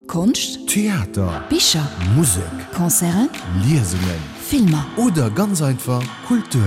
Konscht, Theater, Bicher, Musek, Concerten, Liesungen, Filmer. Oder ganz einfach Kultur.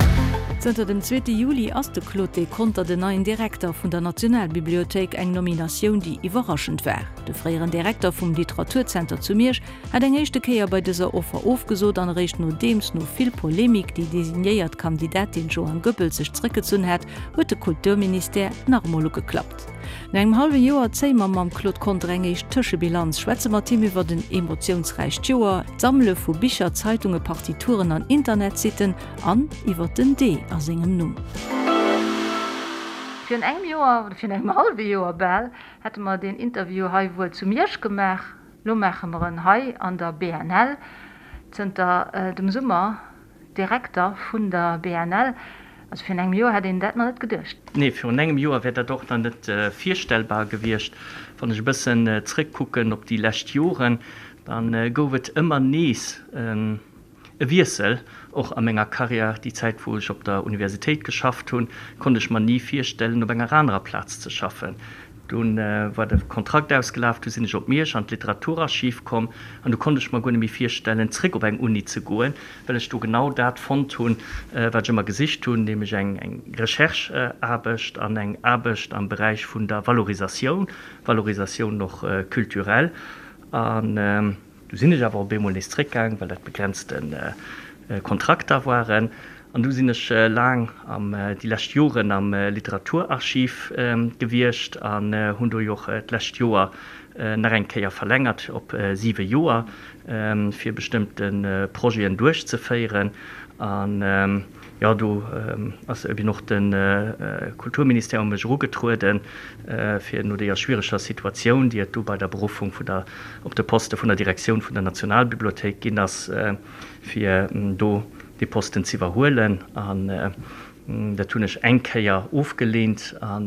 Zënter dem zweete Juli ass de Claude Deconter den neien Direkter vun der Nationalbibliothéik, eng Nominatioun, déi iwwerraschend war. De fréieren Direkter vum Literaturzenter zu Miersch hat eng éischte Kéier bei dëser Offer ofgesot an eréischt nodeems no vill Polemik déi designéiert Kandidatin Joan Goebbels sech zréckgezunn hat, huet de Kulturministère nach emol ugeklappt. No engem hallwe Joer zéie mer mam Claude Conter eng éischt Tëschebilanz, schwätze mat him iwwert en emotiounsräicht Joer, d'Sammele vu Bicher, Zeitunge, Partituren an Internetsitten an iwwert den D a sengem Numm. Virun engem Joer, oder virun engem hallwe Joer bal, hätte mer deen Interview hei wuel zu Miersch gemaach. Lo maache mer en hei an der BNL. Zënter dem Summer Direkter vun der BNL. Also virun engem Joer hätt een dat nach net geduecht. Nee, virun engem Joer wär dat och nach net virstellbar gewiescht. Wann ech e bëssen zrëckkucken op déi lescht Joren, da gouf et ëmmer nees e Wiessel, och a menger Karriär. Déi Zäit, wou ech op der Universitéit geschafft hunn, konnt ech mer ni virstellen, op enger anerer Plaz ze schaffen. Dunn war de Kontrakt ausgelaf, du sinn ech op Miersch an d'Literaturarchiv komm an du konnt ech mer guer net méi virstellen, zréck op eng Uni ze goen, well ech do genau dat fonnt hunn, wat ech ëmmer gesicht hunn, nämlech eng Recherche-Aarbecht an eng Aarbecht am Beräich vun der Valorisatioun, Valorisatioun och culturelle. An Du sinn ech awer op eemol nees zréckgaang, well dat begrenzte Kontrakter waren. An du sinn ech laang am, déi lescht Joren am Literaturarchiv gewiescht an hunn do jo och d'lescht Joer nach eng Kéier verlängert op siwe Joer, fir bestëmmte Projeten duerchzeféieren. An jo, do ass eben och de Kulturministère u mech erugetrueden, fir no deeër schwiereger Situatioun, déi et do bei der Beruffung vun der, op de Poste vun der Direktioun vun der Nationalbibliothéik ginn ass, fir do dee Posten z'iwwerhuelen. An dat hunn ech eng Kéier ofgeleent. A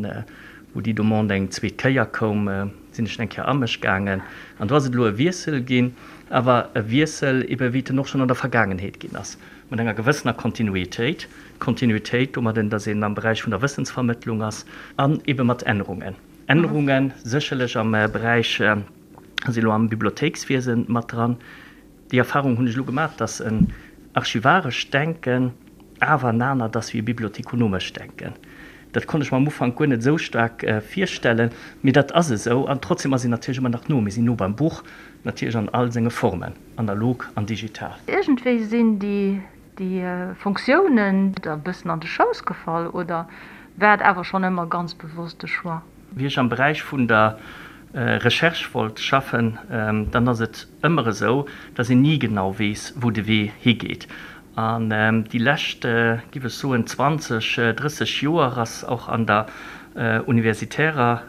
wou déi Demande eng zweet Kéier koum, sinn ech eng Kéier a mech gaangen. An do ass et elo e Wiessel ginn, awer e Wiessel ebe wéi et en och schonn an der Vergaangenheet ginn ass. Mat enger gewëssener Kontinuitéit, Kontinuitéit domadden, datt een am Beräich vun der Wëssensvermëttlung ass, an ebe mat Ännerungen. Ännerunge sécherlech am Beräich, si elo am Bibliothéikswiese mat dran. Déi Erfahrung hunn ech elo gemaach, datt en archivarescht Denken awer en anert ass wéi e bibliothekonomescht Denken. Dat konnt ech mer am Ufank guer net esou staark virstellen, mee dat ass esou. An trotzdem ass een natierlech ëmmer nach no. Mir sinn no beim Buch, natierlech an all senge Formen, analog an digital. Iergendwéi sinn déi Fonctiounen der e bëssen an de Schouss gefall, oder war et awer schonn ëmmer ganz bewosst de Choix? Wéi ech am Beräich vun der Recherche wollt schaffen, dann ass et ëmmer esou, dass een ni genau weess, wou de Wee higeet. An déi lescht, giff ech soen, 20, 30 Joer ass och an der universitärer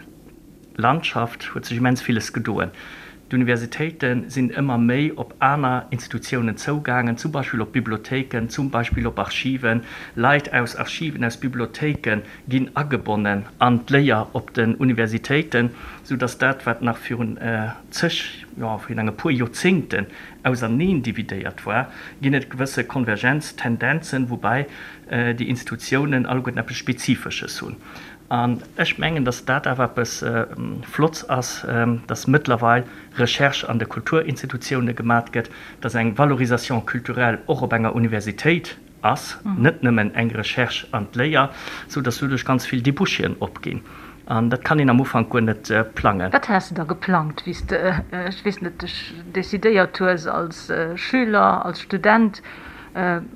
Landschaft huet sech immens villes gedoen. D'Universitéite sinn ëmmer méi op aner Institutiounen zougaangen, zum Beispill op Bibliothéiken, zum Beispill op Archiven. Leit aus Archiven, aus Bibliothéike ginn agebonnen an d'Léier op den Universitéiten, sou datt dat, wat nach virun zeg, jo, virun enge puer Joerzéngten auserneen dividéiert war, ginn et gewësse Konvergenztendenzen, woubäi déi Institutiounen alleguerten eppes Spezifesches hunn. An ech mengen, datt dat awer eppes Flotts ass, datt mëttlerweil Recherche an de Kulturinstitutioune gemat gëtt, datt eng Valorisation culturelle och op enger Universitéit ass, net nëmmen eng Recherche an d'Léier, sou datt doduerch ganz vill Débouchéen opginn. An dat kann een am Ufank guer net plangen. Wat has de da geplangt, wéi s de, ech weess net, dech decidéiert hues als Schüler, als Student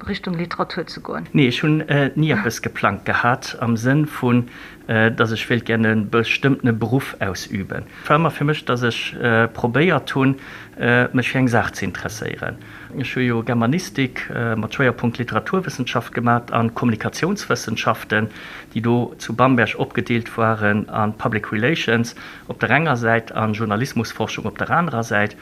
Richtung Literatur ze goen? Nee, ech hunn ni eppes geplangt gehat am Sënn vun, datt ech wéilt gär e bestëmmtene Beruff ausüben. Et war ëmmer fir mech, datt ech probéiert hunn, mech fir eng Saach ze interesséieren. Ech hu jo Germanistik mat Schwéierpunkt Literaturwëssenschaft gemat an Kommunikatiounswëssenschaften, déi do zu Bamberg opgedeelt waren a Public Relations op der enger Säit a Journalismusforschung op der anerer Säit.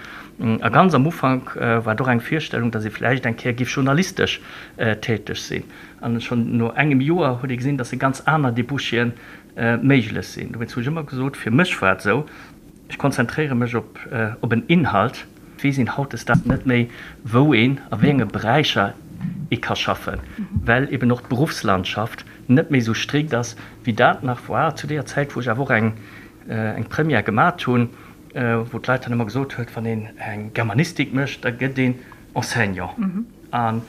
A ganz am Ufank war et och eng Virstellung, datt ee vläicht eng Kéier géif journalistesch täteg sinn. An schonn no engem Joer huet ee gesinn, datt ganz aner Débouchéen méiglech sinn. Dowéinst hu ech ëmmer gesot, fir mech war et esou, ech konzentréiere mech op op en Inhalt. Et weess een hautdesdaags net méi, wou een, a wéi enge Beräicher ee ka schaffen, well eben och d'Beruffslandschaft net méi esou strikt ass, wéi dat nach war zu deeër Zäit, wou ech awer och eng Première gemat hunn. wou d'Leit dann ëmmer gesot huet, wann een eng Germanistik mécht, da gëtt een Enseignant. An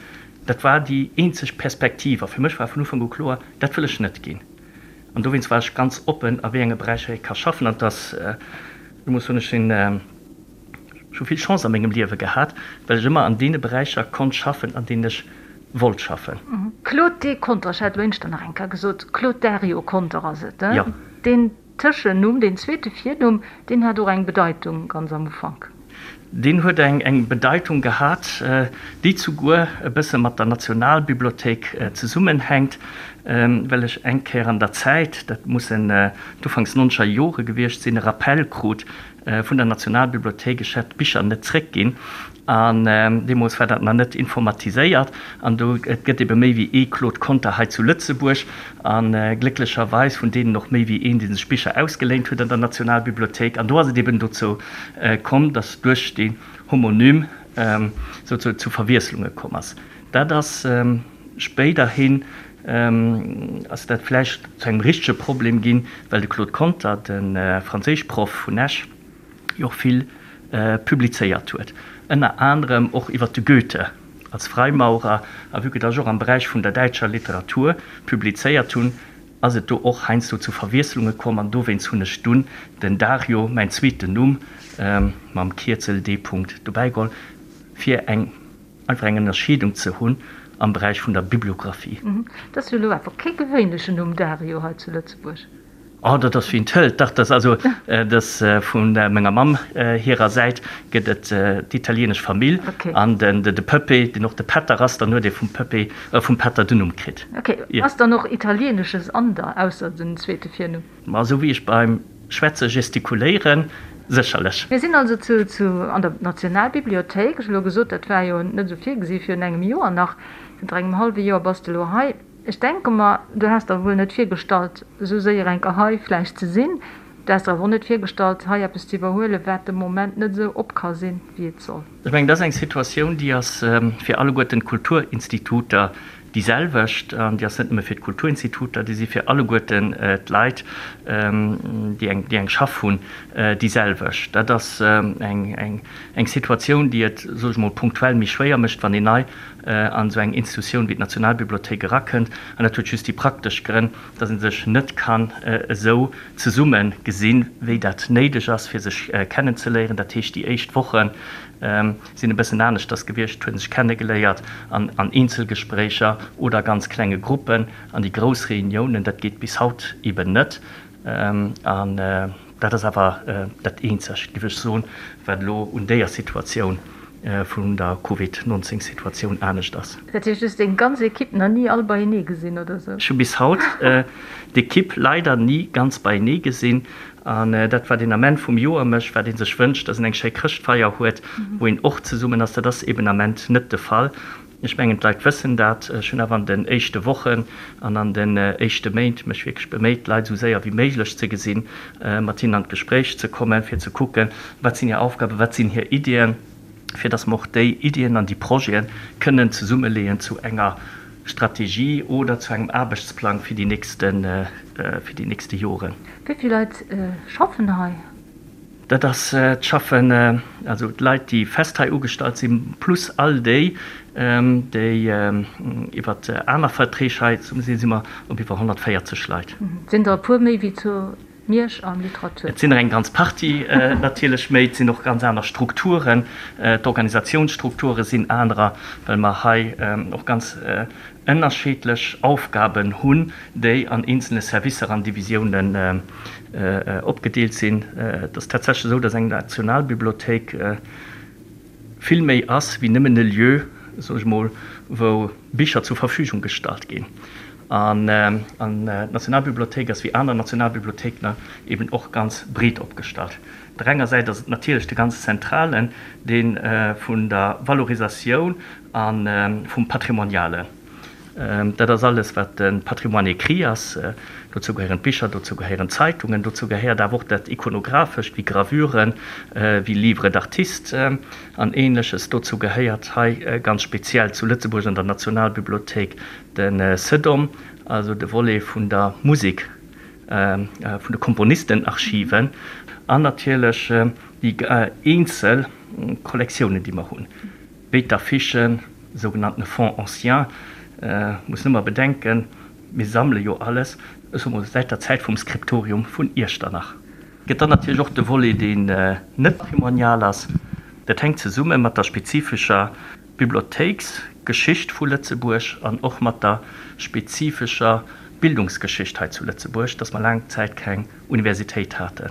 dat war déi eenzeg Perspektiv. A fir mech war vun Ufank u kloer, dat wëll ech net ginn. An dowéinst war ech ganz oppen, a wéi enge Beräicher ee ka schaffen. An et ass, ech muss soen, ech sinn, ech hu vill Chance a mengem Liewe gehat, well ech ëmmer an deene Beräicher konnt schaffen, an deenen ech wollt schaffen. Claude D. Conter, Ech hat elo éinschter nach eng Kéier gesot, Claude Dario Conter ass et, Jo. Deen Tëschennumm, deen zweete Virnumm, deen hat och eng Bedeitung ganz am Ufank. Deen huet eng Bedeitung gehat, déi zuguer e bësse mat der Nationalbibliothéik zesummenhänkt, well ech eng Kéier an der Zäit, dat mussen d'Ufanks nonzeger Jore gewiescht sinn, e Rappel krut vun der Nationalbibliothéik, ech hätt d'Bicher net zréckginn. An deemools war dat nach net informatiséiert. An do, et gëtt ebe méi wéi ee Claude Conter hei zu Lëtzebuerg. A glécklecherweis vun deenen och méi wéi een, dee sech Bicher ausgeléint huet an der Nationalbibliothéik. An do ass et eben dozou komm, datt duerch dee Homonym souzesoen zu Verwiesslunge komm ass. Dat ass spéiderhin ass dat vläicht zu engem richtege Problem ginn, well de Claude Conter, de Franséischproff vun Esch, jo och vill publizéiert huet, ënner anerem och iwwer de Goethe als Freimaurer, a vue que datt ech och am Beräich vun der däitscher Literatur publizéiert hunn, ass et do och heiansdo zu Verwiesslunge komm, an dowéinst hunn ech dunn den Dario, mäin zweeten Numm, mam Kierzel D. Dobäi geholl, fir eng einfach eng Ënnerscheedung ze hunn am Beräich vun der Bibliographie. Dat ass jo elo awer kee gewéinlechen Numm, Dario, hei zu Lëtzebuerg. Oh, dat ass wien et hëlt. Dach, dat ass also, dat ass vu menger Mamm hirer Säit gëtt et d'italienesch Famill an den de Pëppé, deen och de Pätter ass, dann huet ee vum Pëppé, vum Pätter den Numm kritt. Ok, ass dann och Italienesches an der, ausser den zweete Virnumm? Ma esou wéi ech beim Schwätze gestikuléieren, sécherlech. Mir sinn also zu zu an der Nationalbibliothéik. Ech hu elo gesot, dat war jo net esou virgesi virun engem Joer nach. Zënter engem hallwe Joer bass de elo hei. Ech denke mer, du häss der wuel net virgestallt, esou séier enker hei vläicht ze sinn. Du häss der awer och net virgestallt, hei eppes ze iwwerhuelen, wat de Moment net esou op ka sinn, wéi et soll. Ech mengen, dat ass eng Situatioun, déi ass fir alleguerten d'Kulturinstituter déi selwecht. An déi ass net nëmme fir d'Kulturinstituter, déi si fir alleguerten d'Leit, déi eng, déi eng Schaff hunn, déi selwecht. Dat ass eng, eng Situatioun, déi et, soe ech mol, punktuell méi schwéier mécht, wann een nei an esou eng Institutioun wéi d'Nationalbibliothéik erakënnt. An dat huet just déi praktesch Grënn, dass ee sech net kann esou zesumme gesinn, wéi dat néideg ass, fir sech kennenzeléieren. Dat heescht, déi éischt Woche sinn e bëssen aneschters gewiescht, et huet ee sech kennegeléiert an an Eenzelgespréicher oder ganz klenge Gruppen. An déi grouss Reuniounen, dat geet bis haut eben net. An dat ass awer dat Eenzegt, géif ech soen, wat elo un déier Situatioun vun der Covid 19 Situatioun anescht ass. Dat heescht, du hues deng ganz Equipe nach ni all beienee gesinn, oder sou? Ech hu bis haut d'Equipe leider ni ganz beienee gesinn. An dat, wat een Ament vum Joer mécht, wat ee sech wënscht, dass een eng schéi Chrëschtfeier huet, wou een och zesummen ass, dat ass eben Ament net de Fall. Ech mengen, d'Leit wëssen dat. Ech hunn awer an den éischte Wochen an an den éischte Méint mech wierklech beméit, d'Leit esou séier wéi méiglech ze gesinn, mat hinnen an d'Gespréich ze kommen, fir ze kucken, wat sinn hir Aufgaben, wat sinn hir Iddien, fir datt mer och déi Iddien an déi Projete kënnen zesummeleeën zu enger Strategie oder zu engem Aarbechtsplang fir déi nächste, fir déi nächste Joren. Wéi vill Leit schaffen hei? Dat ass d'Schaffen, also d'Leit, déi fest hei ugestallt sinn, plus all déi, déi iwwer aner Verträg hei sinn, si mer op iwwer 140 Leit. Et sinn der e puer méi wéi zu Miersch am Literatur. Et sinn der eng ganz Partie natierlech méi. Et sinn och ganz aner Strukturen. D'Organisationsstrukture sinn anerer, well mer hei och ganz ënnerscheedlech Aufgaben hunn, déi an eenzelne Servicer an Divisiounen opgedeelt sinn. Et ass tatsächlech esou, dass eng Nationalbibliothéik vill méi ass wéi nëmmen e Lieu, soen ech mol, wou Bicher zur Verfügung gestallt ginn. An d'Nationalbibliothéik ass wéi aner Nationalbibliothéiken eben och ganz breet opgestallt. Op der enger Säit ass et natierlech de ganz zentralen, dee vun der Valorisatioun A vum Patrimonialen. Dat ass alles, wat de Patrimoine écrit ass. Dozou gehéieren d'Bicher, dozou gehéieren d'Zeitungen, dozou gehéiert awer och dat Ikonographescht, wéi Gravuren, wéi Livres d'artistes an Ähnleches. Dozou gehéiert hei ganz speziell zu Lëtzebuerg an der Nationalbibliothéik de CEDOM, also de Volet vun der Musek, vun de Komponistenarchiven an natierlech. Déi eenzel Kollektiounen, déi mer hunn, wéi d'Affichen, sougenannten Fonds anciens, muss nëmmer bedenken, mir sammele jo alles, ech soe mol, säit der Zäit vum Skriptorium vun Iechternach. Gëtt dann natierlech och de Volet, deen net patrimonial ass. Dat hänkt zesumme mat der spezifescher Bibliothéiksgeschicht vu Lëtzebuerg an och mat der spezifescher Bildungsgeschicht hei zu Lëtzebuerg, dass mer laang Zäit keng Universitéit haten.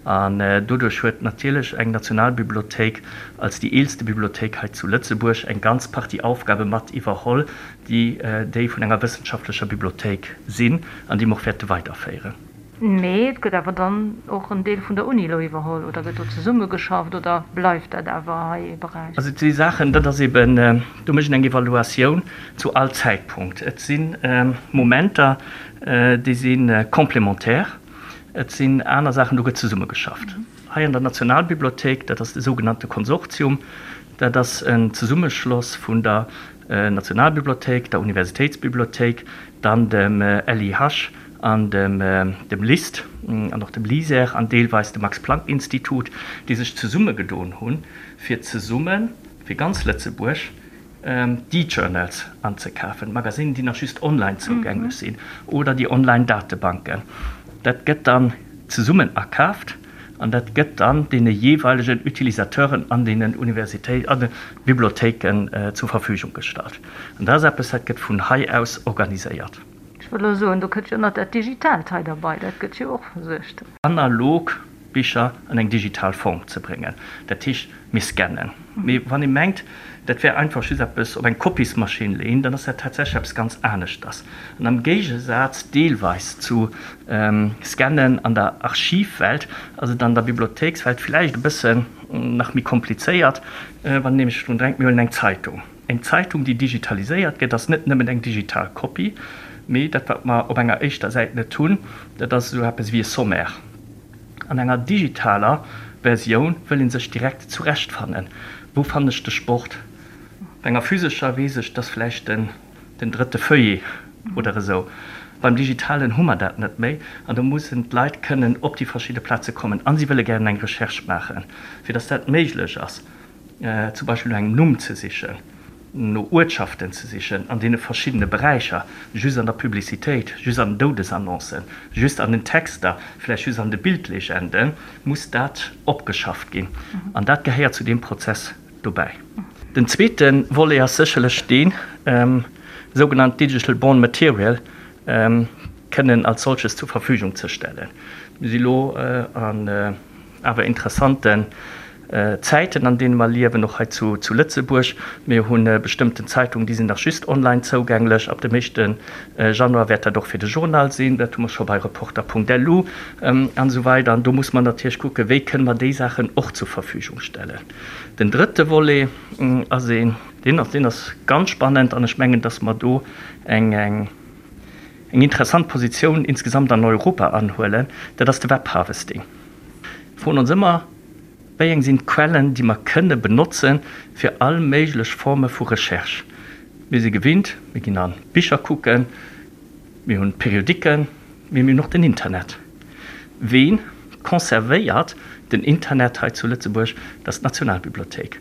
An doduerch huet natierlech eng Nationalbibliothéik als déi eelste Bibliothéik hei zu Lëtzebuerg eng ganz Partie Aufgabe mat iwwerholl, déi déi vun enger wëssenschaftlecher Bibliothéik sinn an déi mer och wäerte weiderféieren. Mee et gëtt awer dann och en Deel vun der Uni elo iwwerholl, oder gëtt do zesummegeschafft oder bleift dat awer hei ee Beräich? Also et si Saachen, dat ass eben, do mécht een eng Evaluatioun zu all Zäitpunkt. Et si Momenter, déi si complémentaire, et sinn aner Saachen, do gëtt zesummegeschafft. Hei an der Nationalbibliothéik, dat ass de sougenannte Konsortium, dat ass en Zesummeschloss vun der Nationalbibliothéik, der Universitéitsbibliothéik, dann dem LIH an dem dem LIST an och dem LISER an deelweis dem Max-Planck-Institut, déi sech zesummegedoen hunn, fir zesumme fir ganz Lëtzebuerg d'E-Journals anzekafen, d'Magasinen, déi nach just online zougänglech sinn, oder déi Online-Datebanken. Dat gëtt dann zesummen akaaft an dat gëtt dann deene jeeweilegen Utilisateuren an deenen Universitéit, an de Bibliothéiken zur Verfügung gestallt. An dat ass eppes, dat gëtt vun hei aus organiséiert. Ech wëll elo soen, do kënnt jo nach dat Digitaalt hei derbei, dat gëtt jo och versuergt. Analog Bicher an eng digital Form ze bréngen. Dat heescht, mir scannen. Mee wann ee mengt, dat wär einfach just eppes op eng Kopiesmaschinn leeën, dann ass dat tatsächlech eppes ganz aneschters. An am Géigesaz deelweis zu Scannen an der Archivwelt ass et an der Bibliothéikswelt vläicht e bëssen nach méi komplizéiert, wann een nämlech drun denkt, mir huelen eng Zeitung. Eng Zeitung, déi digitaliséiert gëtt, ass net nëmmen eng digital Kopie, mee dat, wat mer op enger éischter Säit net hunn, dat ass esou eppes wéi e Sommaire. An enger digitaler Versioun wëll ee sech direkt zurechtfannen, Wou fannen ech de Sport? Bei enger physescher weess ech, dass vläicht den den drëtte Feuillet oder esou. Beim Digitalen hu mer dat net méi an do mussen d'Leit kënnen op déi verschidde Plaze kommen a si wëlle gären eng Recherche maachen, fir dass dat méiglech ass. zum Beispill no engem Numm ze sichen, no Uertschaften ze sichen an deene verschiddene Beräicher, just an der Publicitéit, just an den Doudesannoncen, just an den Texter, vläicht just an de Bildlegenden, muss dat opgeschafft ginn. An dat gehéiert zu deem Prozess dobäi. Den zweete Volet ass sécherlech deen, sougenannt Digital Born Material kënnen als solches zur Verfügung ze stellen. Mir si lo an awer interessanten Zäiten, an deene mer liewen, och hei zu Lëtzebuerg. Mir hu bestëmmten Zeitungen, déi sinn nach just online zougänglech. Ab dem éischte Januar wäert dat och fir de Journal sinn. Dat hu mer scho bei Reporter.lu an esou weider. An do muss mer natierlech kucken, wéi kënne mer déi Saachen och zur Verfügung stellen. Den drëtte Volet ass een, deen ass, deen ass ganz spannend an ech mengen, dass mer do eng, eng interessant Positioun insgesamt an Europa anhuelen, dat ass de Webharvesting. Mir froen ons ëmmer, Wéi eng sinn d'Quellen, déi mer kënne benotzen, fir all méiglech Forme vu Recherche? Mir si gewinnt, mir ginn a Bicher kucken, mir hunn Periodiken, mee mir hunn och den Internet. Ween conservéiert den Internet hei zu Lëtzebuerg? Dat ass d'Nationalbibliothéik.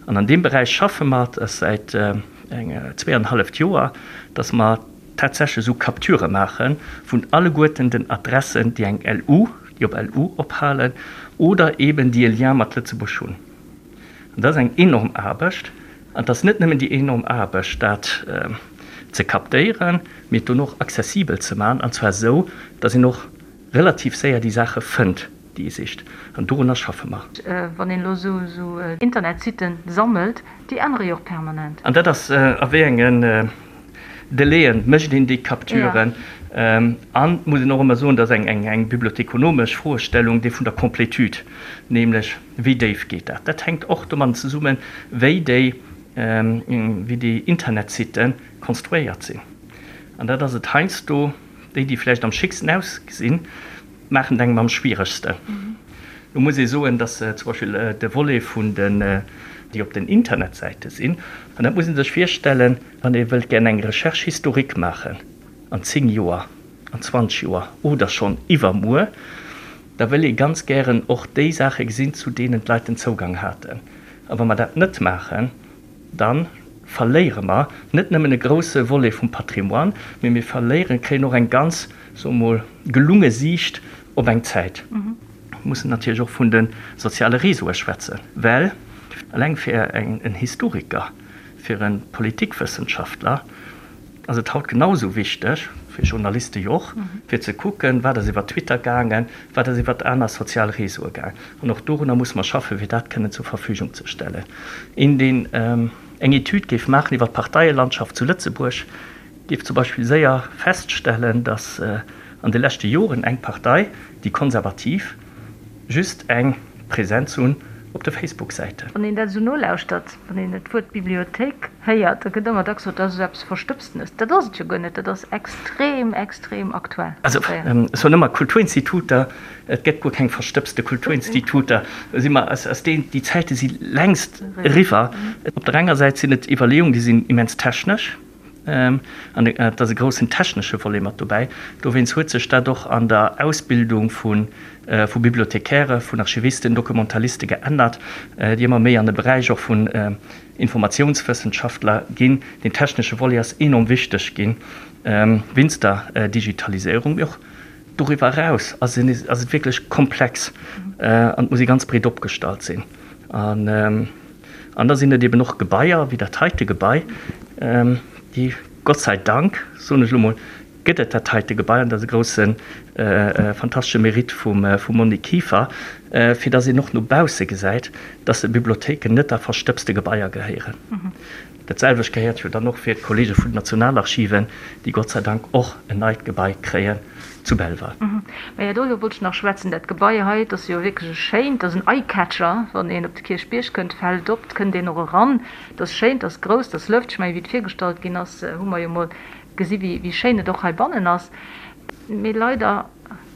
An an deem Beräich schaffe mer säit eng zweeanenhalleft Joer, dass mer tatsächlech esou Capturë maache vun alleguerten den Adressen, déi eng LU, déi op LU ophalen oder eeben déi e Lien mat Lëtzebuerg hunn. An dat ass eng enorm Aarbecht. An et ass net nëmmen déi enorm Aarbecht, dat ze captéieren, mee et dono och accessibel ze maachen, an zwar esou, datt een och relativ séier déi Saache fënnt, déi ee sicht. An dorunner schaffe mer. Wann een elo esou Internetsitten sammelt, déi ännere jo och permanent. An dat ass, a wéi engen Delaien mécht een déi Capturen? An et muss een och ëmmer soen, dat ass eng bibliothekonomesch Froestellung, déi vun der Complétude, nämlech wéi déif geet dat? Dat hänkt och domadden zesummen, wéi déi, wéi déi Internetsitte konstruéiert sinn. An dat ass et heiansdo, déi, déi vläicht am schicksten ausgesinn, maachen et engem am schwieregsten. Do muss ee soen, dass zum Beispill de Volet vun den, déi op den Internetsäite sinn, an dat muss ee sech virstellen, wann ee wëllt gär eng Recherche historique maachen an 10 Joer, an 20 Joer oder schonn iwwermuer. Da wëll ee ganz gären och déi Saache gesinn, zu deenen d'Leit den Zougang haten. A wa mer dat net maachen, da verléiere mer net nëmmen e grouse Volet vum Patrimoine, mee mir verléieren, kréien och eng ganz, soe mol, gelunge Siicht op eng Zäit. Mir mussen natierlech och vun de soziale Réseaue schwätzen, well eleng fir en Historiker, fir e Politikwëssenschaftler ass et haut genau esou wichteg, fir Journaliste jo och, fir ze kucken, wat ass iwwer Twitter gaangen, wat ass iwwer aner sozial Réseaue gaangen. An och dorunner musse mer schaffen, fir dat kënnen zur Verfügung ze stellen. Een, deen eng Etüd géif maachen iwwer d'Parteielandschaft zu Lëtzebuerg, géif zum Beispill séier feststellen, datt an de leschte Joren eng Partei, déi Konservativ, just eng Präsenz hunn op de Facebook-Säiten. Wann een dat esou nolauschtert, wann een d'Wuert Bibliothéik héiert, da gëtt ëmmer dacks gesot, dat ass esou eppes Verstëbstenes. Dat ass et jo guer net, dat ass extrem, extrem aktuell. Also ech soen ëmmer, Kulturinstituter, et gëtt guer keng verstëbste Kulturinstituter. Do si mer, ass deen, déi Zäite si längst eriwwer. Op der enger Säit sinn et Iwwerleeungen, déi sinn immens technesch. An et ass e groussen technesche Volet mat dobäi. Dowéinst huet sech dat och an der Ausbildung vu Bibliothekäre, vun Archivisten, Documentaliste geännert, déi ëmmer méi an de Beräich och vun Informatiounswëssenschaftler ginn. Deen technesche Volet ass enorm wichteg ginn wéinst der Digitaliséierung. Mee och doriwwer eraus ass et wierklech komplex an et muss ee ganz breet opgestallt sinn. An da sinn et eben och Gebaier wéi dat heite Gebai, déi, Gott sei Dank, soen ech elo mol, gëtt et dat heite Gebai, an dat ass e grousse fantastesche Mérite vum Monique Kieffer, fir datt een och no bausse gesäit, datt Bibliothéiken net a verstëbste Gebaier gehéieren. Dat selwecht gehéiert jo dann och fir d'Kollege vun den Nationalarchiven, déi Gott sei Dank och en neit Gebai kréien zu Belval. Maja, doriwwer wollt ech nach schwätzen. Dat Gebai hei, et ass jo wierklech e schéint, et ass en Eye-Catcher, wann een op de Kierchbierg kënnt, fält op, et kënnt een och eran. Et ass schéin, et ass grouss, et ass lëfteg. Ech mengen, wéi et virgestallt ginn ass, hu mer jo mol gesi wéi schéin et och heibannen ass. Mee leider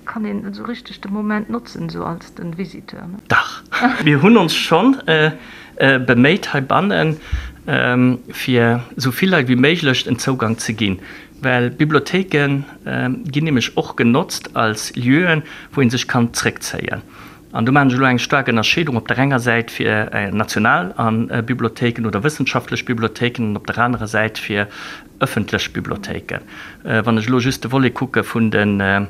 kann een net esou richteg de Moment notzen, esou als den Visiteur, ne? Dach, mir hunn ons schonn beméit heibannen, fir esou vill Leit wéi méiglech en Zougang ze ginn, well Bibliothéike ginn nämlech och genotzt als Lieuen, wou ee sech kann zréckzéien. An do maachen ech elo eng staark Ënnerscheedung, op der enger Säit fir national Bibliothéiken oder wëssenschaftlech Bibliothéiken an op der anerer Säit fir ëffentlech Bibliothéiken. Wann ech elo just de Volet kucke vun de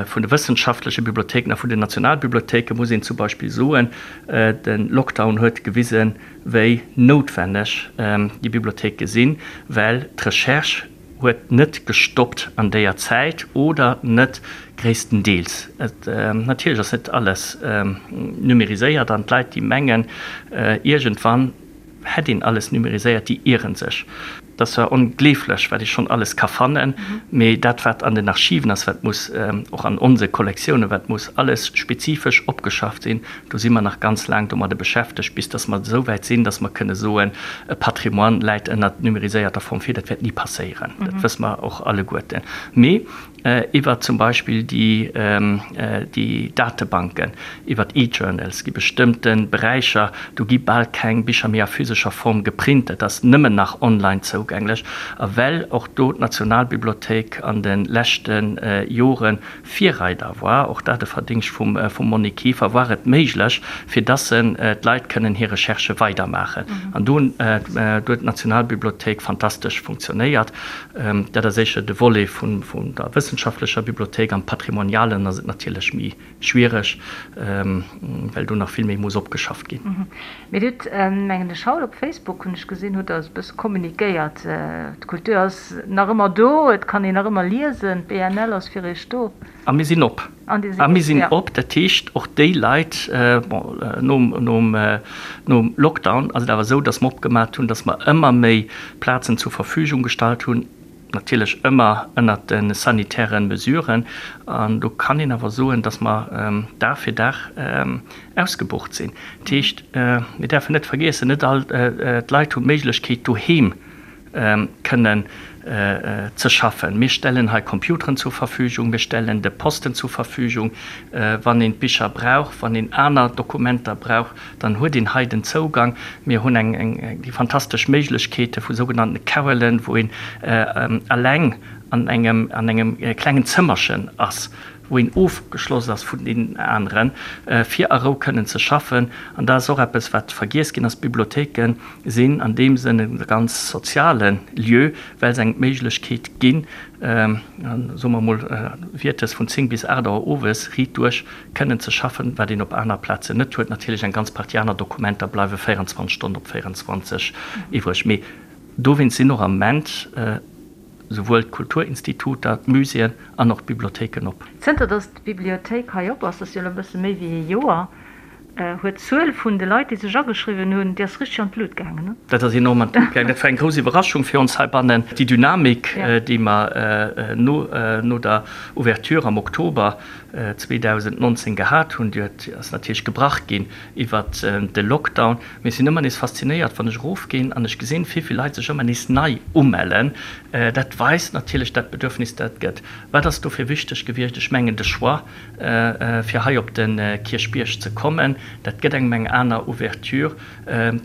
vun de wëssenschaftleche Bibliothéiken a vun den Nationalbibliothéiken, muss een zum Beispill soen, de Lockdown huet gewisen, wéi noutwenneg déi Bibliothéike sinn, well d'Recherche huet net gestoppt an déier Zäit oder net gréisstendeels. Et, natierlech ass net alles numériséiert an d'Leit, déi mengen, iergendwann hätt een alles numériséiert, déi ieren sech. Et ass zwar ongleeflech, wat ee schonn alles ka fannen, mee dat, wat an den Archiven ass, wat muss och an onse Kollektiounen, wat muss alles spezifesch opgeschafft sinn, do si mer nach ganz laang domadde beschäftegt, bis dass mer esou wäit sinn, dass mer kënne soen, e Patrimoine läit ënnert numériséierter Form vir. Dat wäert ni passéieren, dat wësse mer och alleguerten. Mee iwwer zum Beispill déi Datebanken, iwwer d'E-Journals gi bestëmmte Beräicher, do gi bal keng Bicher méi a physescher Form geprint, dat ass nëmmen nach online zougänglech. A well och do d'Nationalbibliothéik an de leschte Jore Virreider war, och dat e Verdingscht vum Monique Kieffer, war et méiglech, fir dass d'Leit kënnen hir Recherchë weidermaachen. An do huet d'Nationalbibliothéik fantastesch funktionéiert. Dat ass éischer de Volet vun der wëssenschaftlecher Bibliothéik. Am Patrimonialen ass et natierlech méi schwiereg, well do nach vill méi muss opgeschafft ginn. Mee Dir hutt, mengen ech, haut op Facebook, hunn ech gesinn, hutt Der e bësse kommunikéiert. D'Kultur ass nach ëmmer do, et kann een nach ëmmer liesen, d'BNL ass fir Iech do. A mir sinn op. A mir sinn op, dat heescht och déi Leit, bon, nom Lockdown ass et awer esou, datt mer opgemat hunn, datt mer ëmmer méi Plazen zur Verfügung gestallt hunn, natierlech ëmmer ënnert de sanitäre Mesuren. An do kann een awer soen, datt mer Dag fir Dag ausgebucht sinn. Dat heescht, mir däerfen net vergiessen, net all d'Leit hunn d'Méiglechkeet doheem kënnen ze schaffen. Mir stellen hei Computeren zur Verfügung, mir stellen de Posten zur Verfügung. Wann een d'Bicher brauch, wann een aner Dokumenter brauch, dann huet een hei den Zougang. Mir hunn eng déi fantastesch Méiglechkeete vu sougenannte Carrelen, wou een eleng an engem an engem klengen Zëmmerchen ass. wou een ofgeschloss ass vun deenen aneren, fir a Rou kënnen ze schaffen. An dat ass och eppes, wat vergiess ginn ass, D'Bibliothéike sinn an deem Sënn e ganz soziale Lieu, well se engem d'Méiglechkeet ginn, soe mer emol, wiertes vun 10 bis 8 Auer owes riit duerch kënnen ze schaffen, wat een op aner Plazen net huet. Natierlech eng ganz Partie aner Dokumenter bleiwe 24 Stonnen op 24 iwwreg, mee dowéinst sinn och am Ament souwuel d'Kulturinstituter, d'Muséeën an och d'Bibliothéiken op. Zënter datt d'Bibliothéik hei op ass, dat ass jo elo e bësse méi wéi ee Joer, huet d'Zuel vun de Leit, déi sech ageschriwwen hunn, déi ass richteg an d'Lut gaangen, ne? Dat ass enorm an d'Lut gaangen. Dat war eng grouss Iwwerraschung fir ons heibannen. Déi Dynamik, déi mer no der Ouverture am Oktober 2019 gehat hunn, déi huet, ass natierlech gebrach ginn iwwert de Lockdown. Mee ech sinn ëmmer nees faszinéiert, wann ech erofginn an ech gesinn, wéi vill Leit sech ëmmer nees nei umellen. Dat weist natierlech dat Bedürfnis, dat et gëtt. Wat ass dofir wichteg gewiescht? Ech mengen de Choix, fir hei op de Kierchbierg ze kommen. Dat gëtt engem eng aner Ouverture.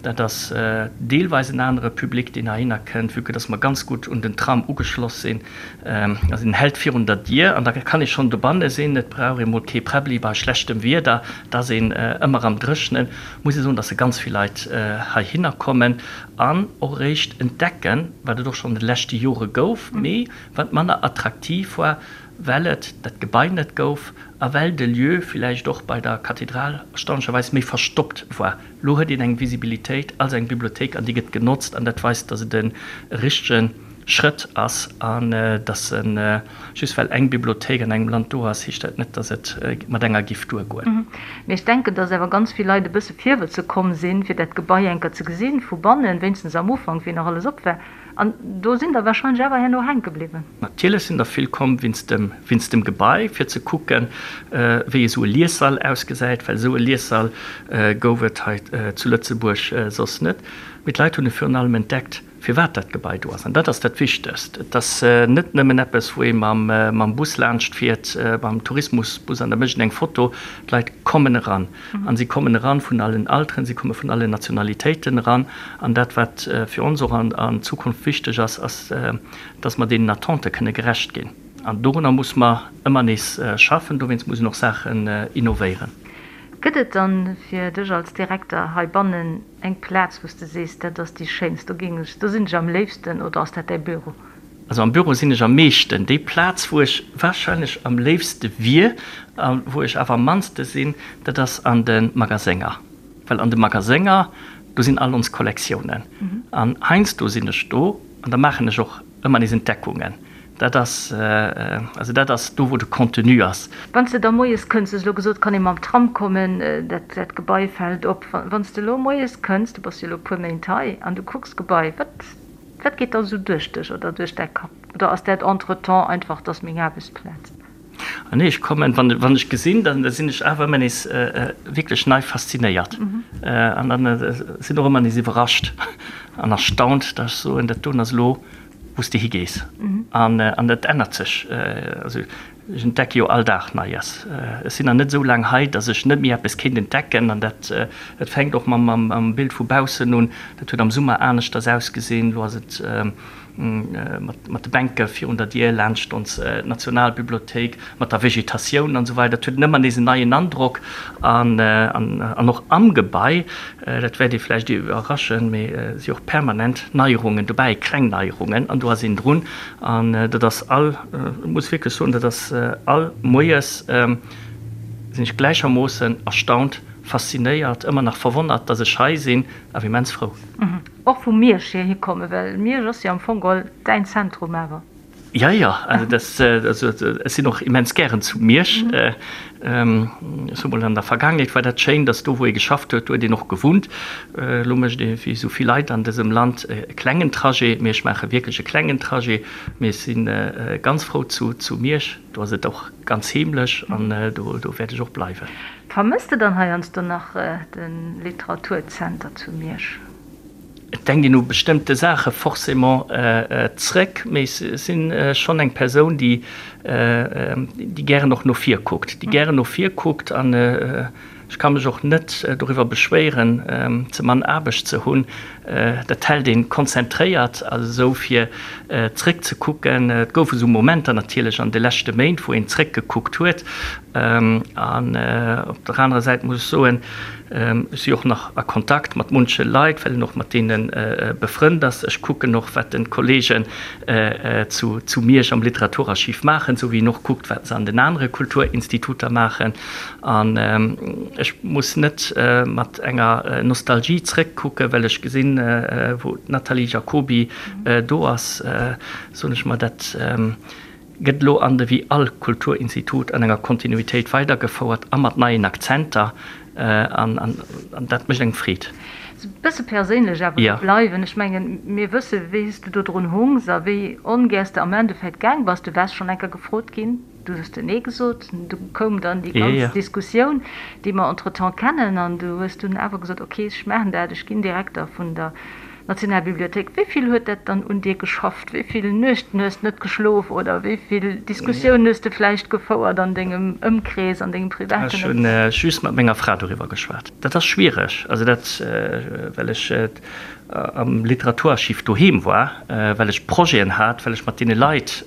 Dat ass deelweis en anere Public, deen heihinner kënnt, vue que dass mer ganz gutt un den Tram ugeschloss sinn. Also en hält virun der Dier an da kann ee schonn dobanne sinn. Et brauch ee mol kee Präbbli bei schlechtem Wieder, et ass een ëmmer am Dréchnen. Muss ee soen, dass se ganz vill Leit heihinner kommen an och eréischt entdecken, wat et och schonn an de leschte Jore gouf, mee wat manner attraktiv war, well et dat Gebai net gouf a well de Lieu villäicht och bei der Kathedral erstaunlecherweis méi verstoppt war. Lo huet een eng Visibilitéit als eng Bibliothéik an déi gëtt genotzt an dat weist, datt et e richtege Schrëtt ass an datt e just well eng Bibliothéik an engem Land do ass, heescht dat net, datt et mat enger giff duergoen. Mee ech denken, datt awer ganz vill Leit e bësse virwëtze komm sinn, fir dat Gebai eng Kéier ze gesinn, vu bannen, wéinstens am Ufank, wéi nach alles op war. An do sinn der wahrscheinlech awer herno hänke bliwwen. Natierlech sinn der vill komm wéinst dem, wéinst dem Gebai, fir ze kucken, wéi esou e Liessall ausgesäit, well esou e Liessall gouf et hei zu Lëtzebuerg soss net. Mee d'Leit hunn e virun allem entdeckt, firwat dat Gebai do ass. An dat ass dat Wichtegst. Et ass net nëmmen eppes, wou ee mam, mam Bus laanscht fiert, mam Tourismusbus, an da mécht een eng Foto. D'Leit kommen eran. An si kommen eran vun allen Alteren, si komme vun allen Nationalitéiten eran. An dat, wat fir ons och an Zukunft wichteg ass, ass, dass mer deenen Attente kënne gerecht ginn. An dorunner muss mer ëmmer nees schaffen. Dowéinst muss een och Saachen innovéieren. Gëtt et dann fir dech als Direkter heibannen eng Plaz, wou s de sees, dat ass déi schéinst, do géing ech, do sinn ech am léifsten, oder ass dat däi Büro? Also am Büro sinn ech am meeschten. Déi Plaz wou ech wahrscheinlech am léifste wier a wou ech awer am mannste sinn, dat ass an de Magasénger. Well an de Magasénger, do sinn all ons Kollektiounen. An heiansdo sinn ech do an da maachen ech och ëmmer nees Entdeckungen. Dat ass, also dat ass do wou de Contenu ass. Wann s de da moies kënns, du hues elo gesot, kann ee mam Tram kommen, dat dat Gebai fält op. Wann s de elo moies kënns, du bass jo elo e puer Méint hei, an du kucks d'Gebai, wat Wat geet da sou duerch dech oder duerch däi Kapp? Oder ass dat entretemps einfach, 't ass meng Aarbechtsplaz? Ah nee, ech kommen, wann wann ech gesinn, dann sinn ech awer ëmmer nees wierklech nei faszinéiert. An dann sinn och ëmmer nees iwwerrascht an erstaunt, dass ech soen, dat doen ass elo wou s de higees. An an dat ännert sech. Also Ech entdecke jo all Dag Neies. Ech sinn nach net esou laang hei, datt ech net méi eppes kéint entdecken. An dat, dat fänkt och mam, mam Bild vu baussen un. Dat huet am Summer aneschters ausgesinn. Elo ass et mat, mat de Bänke virun der Dier laanscht ons Nationalbibliothéik, mat der Vegetatioun an esou weider. Dat huet ëmmer nees en neien Androck. An, an, an och am Gebai, dat wäert ee vläicht iwwerraschen, mee et si och permanent Neierungen dobäi, kleng Neierungen. An do ass een drun. An dat ass all, ech muss wierklech soen, dat ass all Moies sinn ech gläichermoossen erstaunt, faszinéiert, ëmmer nach verwonnert, dass ech hei sinn, awer immens frou. Och vu Miersch hier hikommen, well Miersch ass jo am Fong geholl däin Zentrum awer. Jo, jo, also dat, also ech sinn och immens gären zu Miersch. Ech soe mol, an der Vergaangenheet war dat schéin, dass do wou ee geschafft huet, do huet een och gewunnt. Elo mécht ee wéi esou vill Leit an dësem Land e klengen Trajet, mee ech maache wierklech e klengen Trajet. Mee ech si ganz frou zu Miersch, do ass et och ganz heemlech an do wäert ech och bleiwen. Vermësst de dann heiansdo nach de Literaturzenter zu Miersch? Et denkt een u bestëmmte Saache forcément zréck, mee ech si schonn eng Persoun, déi déi gären och no vir kuckt, déi gären no vir kuckt an. Ech ka mech och net doriwwer beschwéieren, ze mann Aarbecht ze hunn. Dat hält een konzentréiert, also esou fir zréck ze kucken. Et goufe sou Momenter natierlech an de leschte Méint, wou een zréck gekuckt huet. An op der anerer Säit muss ech soen, ech si och nach a Kontakt mat munche Leit, well een och mat deene befrënnt ass. Ech kucken och, wat de Kollegen zu Miersch am Literaturarchiv maachen, esou wéi een och kuckt, wat se an den anere Kulturinstituter maachen. An ech muss net mat enger Nostalgie zréckkucken, well ech gesinn, wou d'Nathalie Jacoby do ass, soen ech mer, dat gëtt elo an de wéi all Kulturinstitut an enger Kontinuitéit weidergefouert a mat neien Akzenter. An dat mécht engem Freed. E bësse perséinlech awer do bleiwen. Ech mengen, mir wësse wéi s du do drun hungs a wéi ongär s de am Endeffekt gaang bass. Du waars schonn eng Kéier gefrot ginn. Du hues de Nee gesot. Du koum dann déi ganz Diskussioun, déi mer entretemps kennen, an du hues dunn awer gesot, ok, ech maachen dat, ech ginn Direkter vun der Nationalbibliothéik. Wéi vill huet dat dann un dir geschafft? Wéi vill Nuechten hues de net geschlof oder wéi vill Diskussiounen hues de vläicht gefouert an dengem Ëmkrees, an dengem privaten Ech hunn just mat menger Fra doriwwer geschwat. Dat ass schwiereg, also dat, well ech am Literaturarchiv doheem war, well ech Projeten hat, well ech mat deene Leit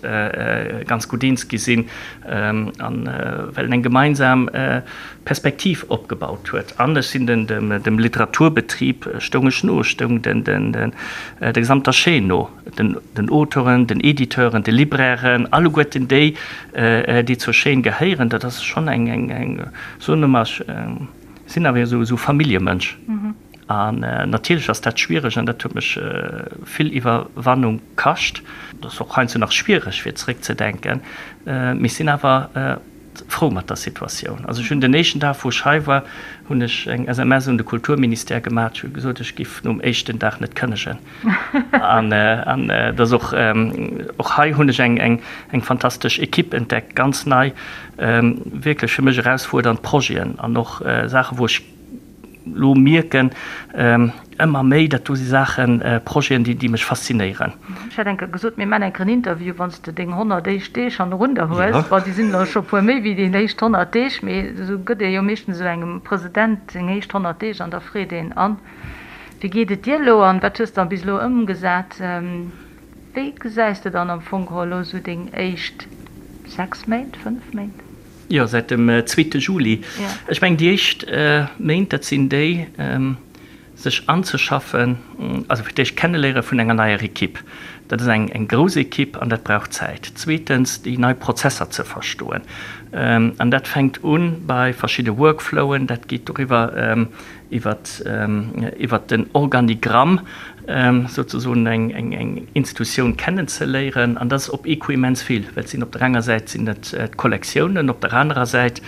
ganz gutt eens gi sinn an well en eng gemeinsam Perspektiv opgebaut huet. An ech sinn dem Literaturbetrib stoung ech no, ech stoung der gesamter Chaîne no, den Auteuren, den Editeuren, de Librairen, alleguerten déi, déi zur Chaîne gehéieren. Dat ass schonn eng, soen ech mol, ech sinn awer esou Familljemënsch. An natierlech ass dat schwiereg an dat huet mech vill Iwwerwannung kascht. Et ass och heiansdo nach schwiereg fir zeréckzedenken, mee ech sinn awer frou mat der Situatioun. Also ech hunn den éischten Dag wou ech hei war, hunn ech eng SMS un de Kulturministère gemaach, ech hu gesot, ech giff nom éischten Dag net kënnegen. An et ass och, och hei hunn ech eng eng fantastesch Equipe entdeckt, ganz nei, wierklech fir mech erausfuerdernd Projeten an och Saache wou ech, Lo mierken ëmmer méi, dat do si Saachen, Projeten, déi mech faszinéieren. Ech hat eng Kéier gesot, mir man eng Kéier en Interview, wann s de deng 100 éischt Deeg hannerun der hues. Bon, déi sinn elo scho puer méi wéi déi éischt 100 Deeg, mee esou gëtt ee jo meeschtens esou engem President seng éischt 100 Deeg an da freet een, An, wéi geet et dir elo an wat hues de bis elo ëmgesat? Wéi gesäis de dann am Fong geholl elo esou deng éischt 6 Méint, 5 Méint? Jo, säit dem zweete Juli. Ech mengen, déi éischt Méint, dat sinn déi, sech anzeschaffen, also fir d'éischt d'Kenneléiere vun enger neier Ekipp. Dat ass eng grouss Ekipp an dat brauch Zäit. Zweetens, déi nei Prozesser ze verstoen. An dat fänkt u bei verschidde Workflowen, dat geet doriwwer, iwwert den Organigramm souzesoen eng Institutioun kennenzeléieren. An dat ass op ee Coup immens vill, well et sinn op der enger Säit sinn et d'Kollektiounen, op der anerer Säit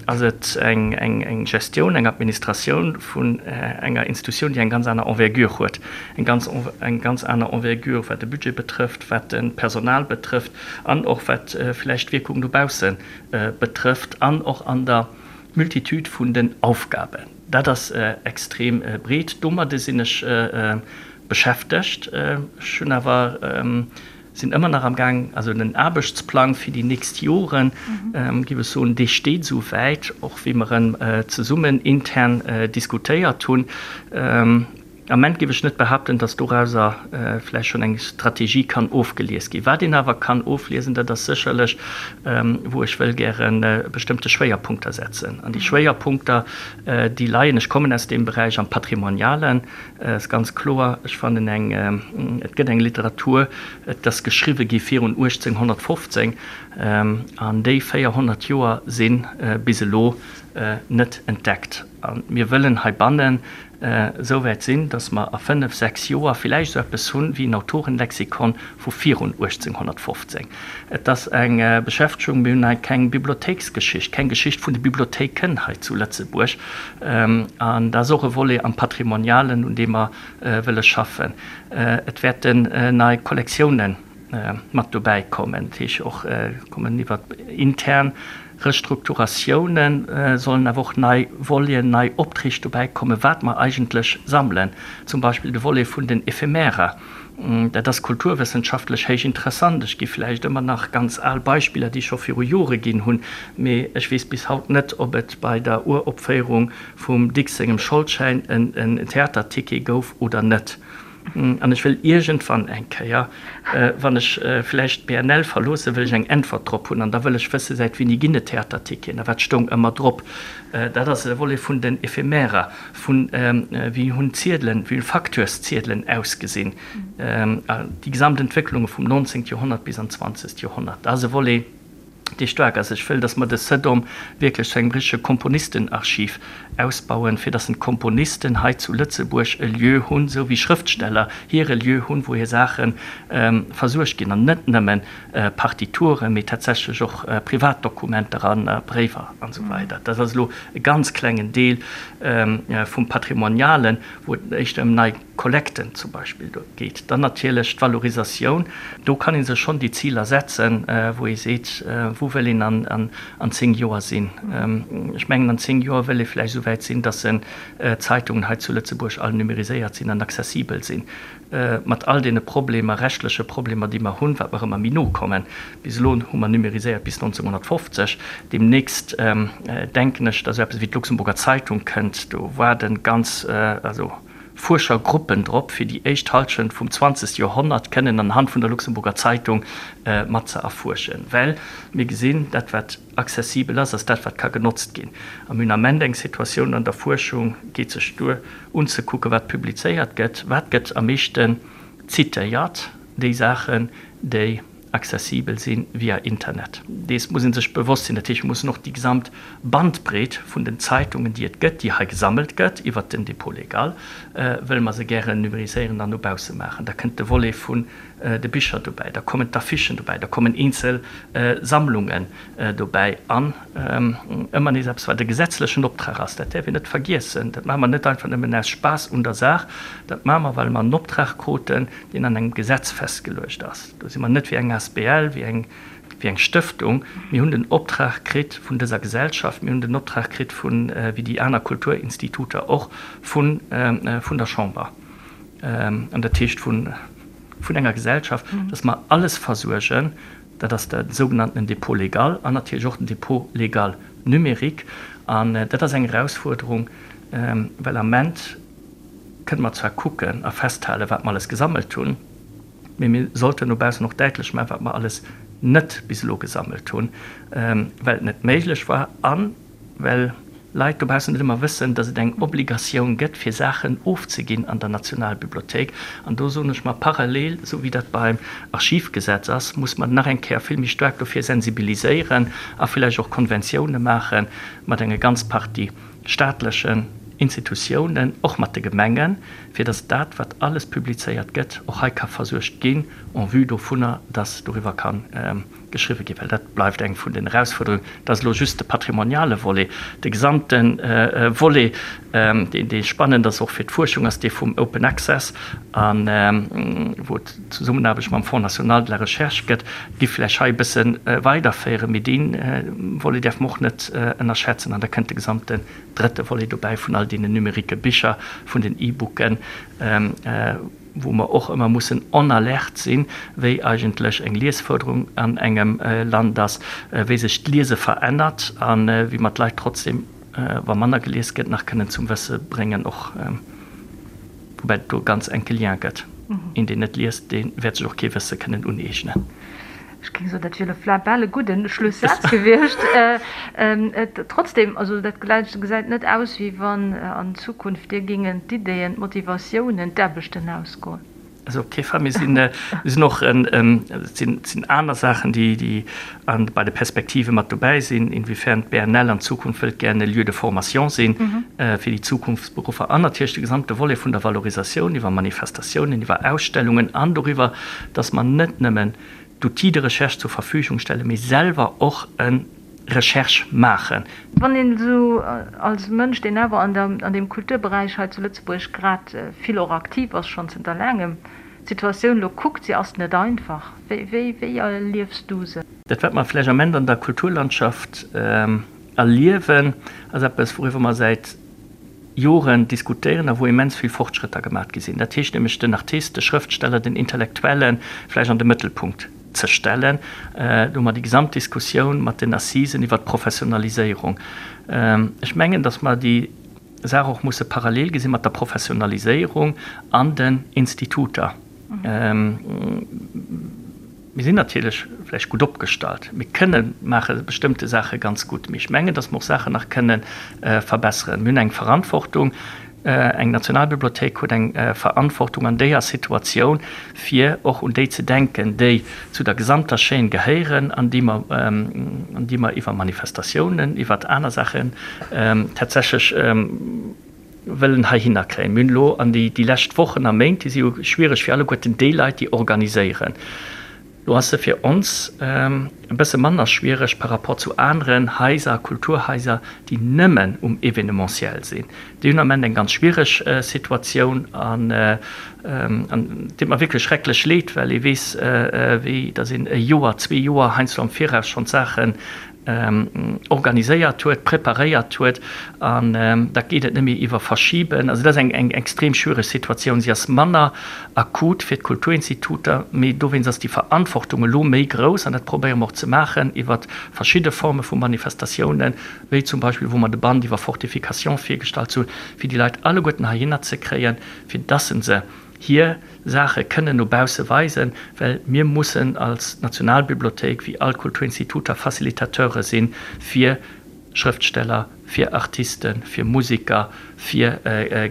ass et eng Gestioun, eng Administratioun vun enger Institutioun, déi eng ganz aner Envergure huet, eng ganz eng ganz aner Envergure wat de Budget betrëfft, wat de Personal betrëfft an och wat vläicht d'Wierkung dobausse betrëfft an och an der Multitude vun den Aufgaben, dat ass extrem breet. Domadde sinn ech beschäftegt. Ech hunn awer, sinn ëmmer nach am Gaang, also den Aarbechtsplang fir déi nächst Joren, géif ech soen, dee steet esou wäit, och wéi mer en zesummen intern diskutéiert hunn. Am Ament géif ech net behaapten, datt dorauser vläicht schonn eng Strategie kann ofgelies ginn. Wat een awer kann ofliesen, dat ass sécherlech, wou ech wëll gäre bestëmmte Schwéierpunkter setzen. An déi Schwéierpunkter, déi leien, ech kommen aus deem Beräich, am Patrimonialen, ass ganz kloer. Ech fannen eng, et gëtt eng Literatur, et ass geschriwwe gi virun 1815, an déi 400 Joer si bis elo net entdeckt. A mir wëllen heibannen esou wäit sinn, datt mer a fënnef, sechs Joer villäicht esou eppes hunn wéi en Autorenlexikon vu virun 1815. Et ass eng Beschäftegung, mir hunn hei keng Bibliothéiksgeschicht, keng Geschicht vun de Bibliothéiken hei zu Lëtzebuerg. An dat ass och e Volet am Patrimonialen, un deem mer wëlle schaffen. Et wäerten nei Kollektiounen mat dobäi kommen, dat heescht och kommen iwwer intern. Restrukturatiounen, sollen awer och nei Voleten, nei Opträg dobäi kommen, wat mer eigentlech sammelen. Zum Beispill de Volet vun den Ephemerer. Dat ass kulturwëssenschaftlech héich interessant. Ech gi vläicht ëmmer nach ganz al Beispiller, déi ech scho viru Jore ginn hunn, mee ech weess bis haut net, ob et bei der Uropféierung vum Dicks sengem Scholdschäin en Theaterticket gouf oder net. An ech wëll iergendwann eng Kéier, wann ech vläicht d'BNL verloossen, wëll ech eng Äntwert drop hunn. An da wëll ech wëssen, säit wéini ginn et Theaterticketen a wat stoung ëmmer drop. Dat ass e Volet vun den Ephemerer, vun wéi hunn d'Ziedelen, wéi hunn Facteursziedelen ausgesinn, déi gesamt Entwécklunge vum 19. Joerhonnert bis an d'zwanzegt Joerhonnert. Dat ass e Volet. dee staark ass. Ech wëll, dass mer de CEDOM wierklech zu engem richtege Komponistenarchiv ausbauen, fir dass d'Komponisten hei zu Lëtzebuerg e Lieu hunn, esou wéi Schrëftsteller hire Lieu hunn, wou hir Saache versuergt ginn, an net nëmme Partituren, mee tatsächlech och Privatdokumenter a Bréiwer an esou weider. Dat ass elo e ganz klengen Deel vum Patrimonialen, wou et éischter ëm nei Kollekten zum Beispill do geet. Dann natierlech d'Valorisatioun. Do kann ee sech schonn déi Ziler setzen, wou ee seet, wou wëll een an 10 Joer sinn. Ech mengen, an 10 Joer wëll ee vläicht esou wäit sinn, datt d'Zeitungen hei zu Lëtzebuerg all numeriséiert sinn an accessibel sinn, mat all deene Problemer, rechtleche Problemer, déi mer hunn, wat mer ëmmer méi no kommen. Bis elo hu mer numeriséiert bis 1950. Deemnächst denken ech, datt esou eppes wéi d'Luxemburger Zeitung kënnt. Do waarde ganz, also Fuerschergruppen drop, fir déi éischt Halschent vum 20. Joerhonnert kënnen anhand vun der Luxemburger Zeitung mat ze erfuerschen. Well mir gesinn, dat wat accessibel ass, ass dat wat ka genotzt ginn. A mir hunn am Ament eng Situatioun an der Fuerschung, geet sech duer unzekucken, wat publizéiert gëtt, wat gëtt am meeschten zitéiert, déi Saachen, déi accessibel si via Internet. Dees muss ee sech bewosst sinn. Dat heescht, mir mussen och déi gesamt Bandbreet vun den Zeitungen, déi et gëtt, déi hei gesammelt gëtt iwwert den Dépôt légal, wëlle mer se gären numériséieren an no bausse maachen. Da kënnt de Volet vun de Bicher dobäi, da kommen d'Affichen dobäi, da kommen eenzel Sammlungen dobäi an ëmmer nees eppes, wat e gesetzlechen Optrag ass. Dat däerf een net vergiessen. Dat maache mer net einfach nëmmen aus Spaass un der Saach, dat maache mer, well mer en Optrag kruten, deen an engem Gesetz festgeluecht ass. Do si mer net wéi eng asbl, wéi eng, wéi eng Stëftung. Mir hunn den Optrag kritt vun dëser Gesellschaft, mir hunn den Optrag kritt vun, wéi déi aner Kulturinstituter och, vun, vun der Chamber, an dat heescht vun, vun enger Gesellschaft, dass mer alles versuergen. Dat ass de sougenanntenen Dépôt légal an natierlech och den Dépôt légal numérique. An dat ass eng Erausfuerderung, well am Ament kënne mer zwar kucken a festhalen, wat mer alles gesammelt hunn, Mee mir sollten no baussen och däitlech maachen, wat mer alles net bis elo gesammelt hunn, well et net méiglech war a well Leit dobaussen net ëmmer wëssen, dass et eng Obligatioun gëtt, fir Saachen ofzeginn an der Nationalbibliothéik. An do soen ech mer, parallel, esou wéi dat beim Archivgesetz ass, muss mer nach eng Kéier vill méi staark dofir sensibiliséieren a villäicht och Konventioune maache mat enger ganz Partie staatlechen Institutiounen, och mat de Gemengen, fir dass dat, wat alles publizéiert gëtt, och hei ka versuergt ginn, en vue dovunner, dass doriwwer ka geschriwwe ginn. Well dat bleift eng vun den Erausfuerderungen. Dat ass elo just de patrimoniale Volet. De gesamte Volet, deen dee spannend ass och fir d'Fuerschung, ass dee vum Open Access, a wou et d'Zesummenaarbecht mam Fonds national de la recherche gëtt, géif vläicht hei e bësse weiderféieren. Mee dee Volet däerfe mer och net ënnerschätzen. An da kënnt de gesamte drëtte Volet dobäi vun all deenen numérique Bicher, vun den E-Booken, wou mer och ëmmer mussen en alerte sinn, wéi eigentlech eng Liesförderung an engem Land ass, wéi sech d'Liese verännert a wéi mer d'Leit trotzdem, wa manner gelies gëtt, nach kënnen zum Wësse bréngen och. Woubäi et do e ganz enke Lien gëtt. Een, deen net liest, dee wäert sech och kee Wësse kënnen uneegnen. Ech géing soen, dat wier elo bal e gudden Schlussaz gewiescht. Trotzdem, also dat gesäit net aus, wéi wann an Zukunft dir géingen d'Iddeen, d'Motivatiounen, d'Aarbechten ausgoen. Also op kee Fall. Mir sinn, mir sinn och, et sinn, et sinn aner Saachen, déi, déi an, bei de Perspektive mat dobäi sinn, inwiefern d'BNL an Zukunft wëllt gären e Lieu de formation sinn fir déi Zukunftsberuffer an natierlech de gesamte Volet vun der Valorisatioun iwwer Manifestatiounen, iwwer Ausstellungen an doriwwer, dass mer net nëmmen d'Outils de recherche zur Verfügung stellen, mee selwer och e Recherche maachen. Wann een esou als Mënsch, deen awer an der, an deem Kulturberäich hei zu Lëtzebuerg grad vill och aktiv ass, schonn zënter laangem, d'Situatioun elo kuckt, se ass net einfach. Wéi, wéi, wéi erliefs du se? Dat wat mer vläicht am Ament an der Kulturlandschaft erliewen, ass eppes wouriwwer mer säit Joren diskutéieren a wou immens vill Fortschrëtter gemaat gi sinn. Dat heescht nämlech den Artist, de Schrëftsteller, den Intellektuelle vläicht an de Mëttelpunkt ze stellen. Do hu mer déi gesamt Diskussioun mat den Assisen iwwert d'Professionaliséierung. Ech mengen, datt mer déi Saach och musse parallel gesi mat der Professionaliséierung an den Instituter. Mir sinn natierlech vläicht gutt opgestallt, mir kënne maache bestëmmte Saache ganz gutt, mee ech mengen, datt mer och Saachen nach kënne verbesseren. Mir hunn eng Verantwortung, eng Nationalbibliothéik huet eng Verantwortung an déier Situatioun, fir och un déi ze denken, déi zu der gesamter Chaîne gehéieren an déi mer, an déi mer iwwer Manifestatiounen, iwwer aner Saachen tatsächlech wëllen heihinner kréien. Mir hunn elo an déi lescht Wochen a Méint, déi si jo schwiereg fir alleguerten déi Leit, déi organiséieren. Lo ass se fir ons e bësse manner schwiereg par rapport zu aneren Haiser, Kulturhaiser, déi nëmmen um Événementiel sinn. Déi hunn am Ament eng ganz schwiereg Situatioun an et deet mer wierklech schrecklech leed, well ee weess, wéi datt een e Joer, zwee Joer heiansdo am Viraus schonn d'Saachen organiséiert huet, preparéiert huet an da geet et net méi iwwer Verschiben. Also dat ass eng extrem schwiereg Situatioun. Si ass manner akut fir d'Kulturinstituter, mee dowéinst ass déi Verantwortung elo méi grouss an dat probéiere mer och ze maachen iwwer verschidde Forme vu Manifestatiounen, wéi zum Beispill wou mer de Band iwwer Fortification virgestallt hunn, fir déi Leit alleguerten heihinner ze kréien, fir dass se hir Saache kënnen no bausse weisen, well mir mussen als Nationalbibliothéik, wéi all Kulturinstituter, Facilitateure sinn fir Schrëftsteller, fir Artisten, fir Musiker, fir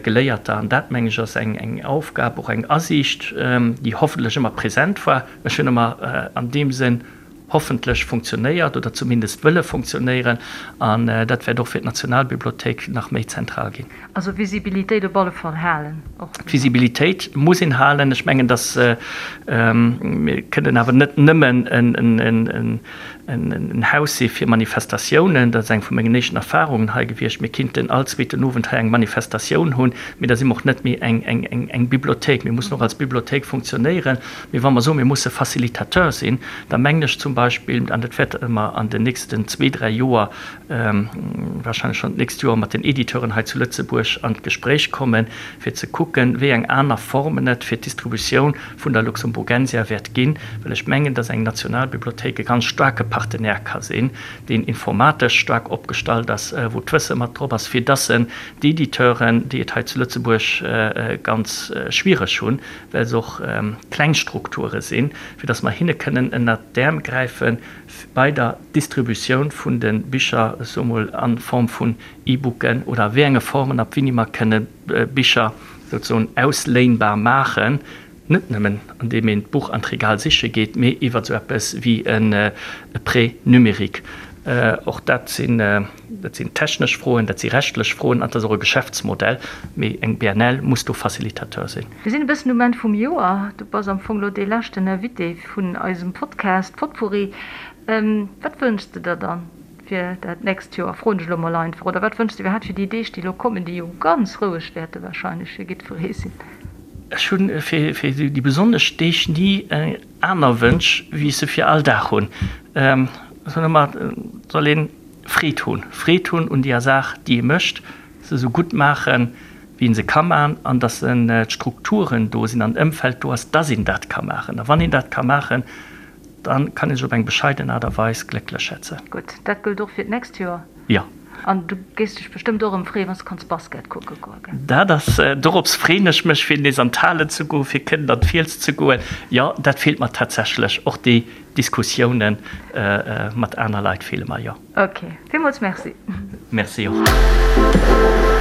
Geléierter. An dat, meng ech, ass eng Aufgab, och eng Asiicht, déi hoffentlech ëmmer present war. Ech hunn ëmmer an deem Sënn hoffentlech funktionéiert oder zumindest wëlle funktionéieren an dat wäert och fir d'Nationalbibliothéik nach méi zentral ginn. Also Visibilitéit op alle Fall halen och. D'Visibilitéit muss een halen. Ech mengen, datt mir kënnen awer net nëmmen en Haus si fir Manifestatiounen. Dat ass eng vu mengen éischten Erfahrungen hei gewiescht. Mir kinnten all zweeten Owend hei eng Manifestatioun hunn, mee da si mer och net méi eng Bibliothéik. Mir mussen och als Bibliothéik funktionéieren. Mee wa mer soen, mir musse Facilitateur sinn, da mengen ech zum Beispill, an dat wäerte mer an den nächsten zwee, dräi Joer, wahrscheinlech schonn d'nächst Joer, mat den Editeuren hei zu Lëtzebuerg an d'Gespréich kommen, fir ze kucken, wéi eng aner Formen et fir d'Distributioun vun der Luxemburgensia wäert ginn, well ech mengen, dass eng Nationalbibliothéik e ganz staarke Partenaire ka sinn, deen informatesch staark opgestallt ass, wou d'Wësse mat drop ass, fir dass en d'Editeuren, déi et hei zu Lëtzebuerg ganz schwiereg hunn, well se och kleng Strukture sinn, fir dass mer hinne kënnen ënnert d'Äerm gräife bei der Distributioun vun de Bicher, ech soe mol a Form vun E-Booken oder a wéi enge Formen, ab wéini mer kënne Bicher souzesoen ausléinbar maachen, net nëmmen andeem een d'Buch an d'Regal siche geet, mee iwwer esou eppes wéi e Prêt numérique. Och dat sinn, dat sinn technesch Froen, dat si rechtlech Froen an dat ass och e Geschäftsmodell, mee eng BNL muss do Facilitateur sinn. Mir sinn e bëssen um Enn vum Joer. Du bass am Fong elo dee leschten Invité vun eisem Podcast Potpourri. Wat wënschs de der dann fir dat nächst Joer, froen ech elo mol einfach, oder wat wënschs de iwwerhaapt fir déi Deeg, déi elo kommen, déi jo ganz roueg wäerte wahrscheinlech fir jiddweree sinn? Ech hu fir déi besonnesch Deeg ni aner Wënsch, wéi ech se fir all Dag hunn. Ech soen ëmmer, et soll ee Freed hunn, Freed hunn un deeër Saach, déi ee mécht, se esou gutt maachen, wéi ee se ka maachen, an datt d'Strukturen do sinn an d'Ëmfeld do ass, datt een dat ka maachen. A wann een dat ka maachen, da kann ee sech op eng bescheiden Aart a Weis glécklech schätzen. Gutt, dat gëllt och fir d'nächst Joer. Jo. An du géifs dech bestëmmt och erëm freeën, wann s de kanns Basket kucke goen, gell? Dat ass, dorops freeën ech mech, fir nees an d'Halen ze goen, fir kënnen an d'Fiels ze goen. Jo, dat feelt mer tatsächlech. Och déi Diskussiounen mat aner Leit feele mer, jo. Ok, villmools Merci. Merci och.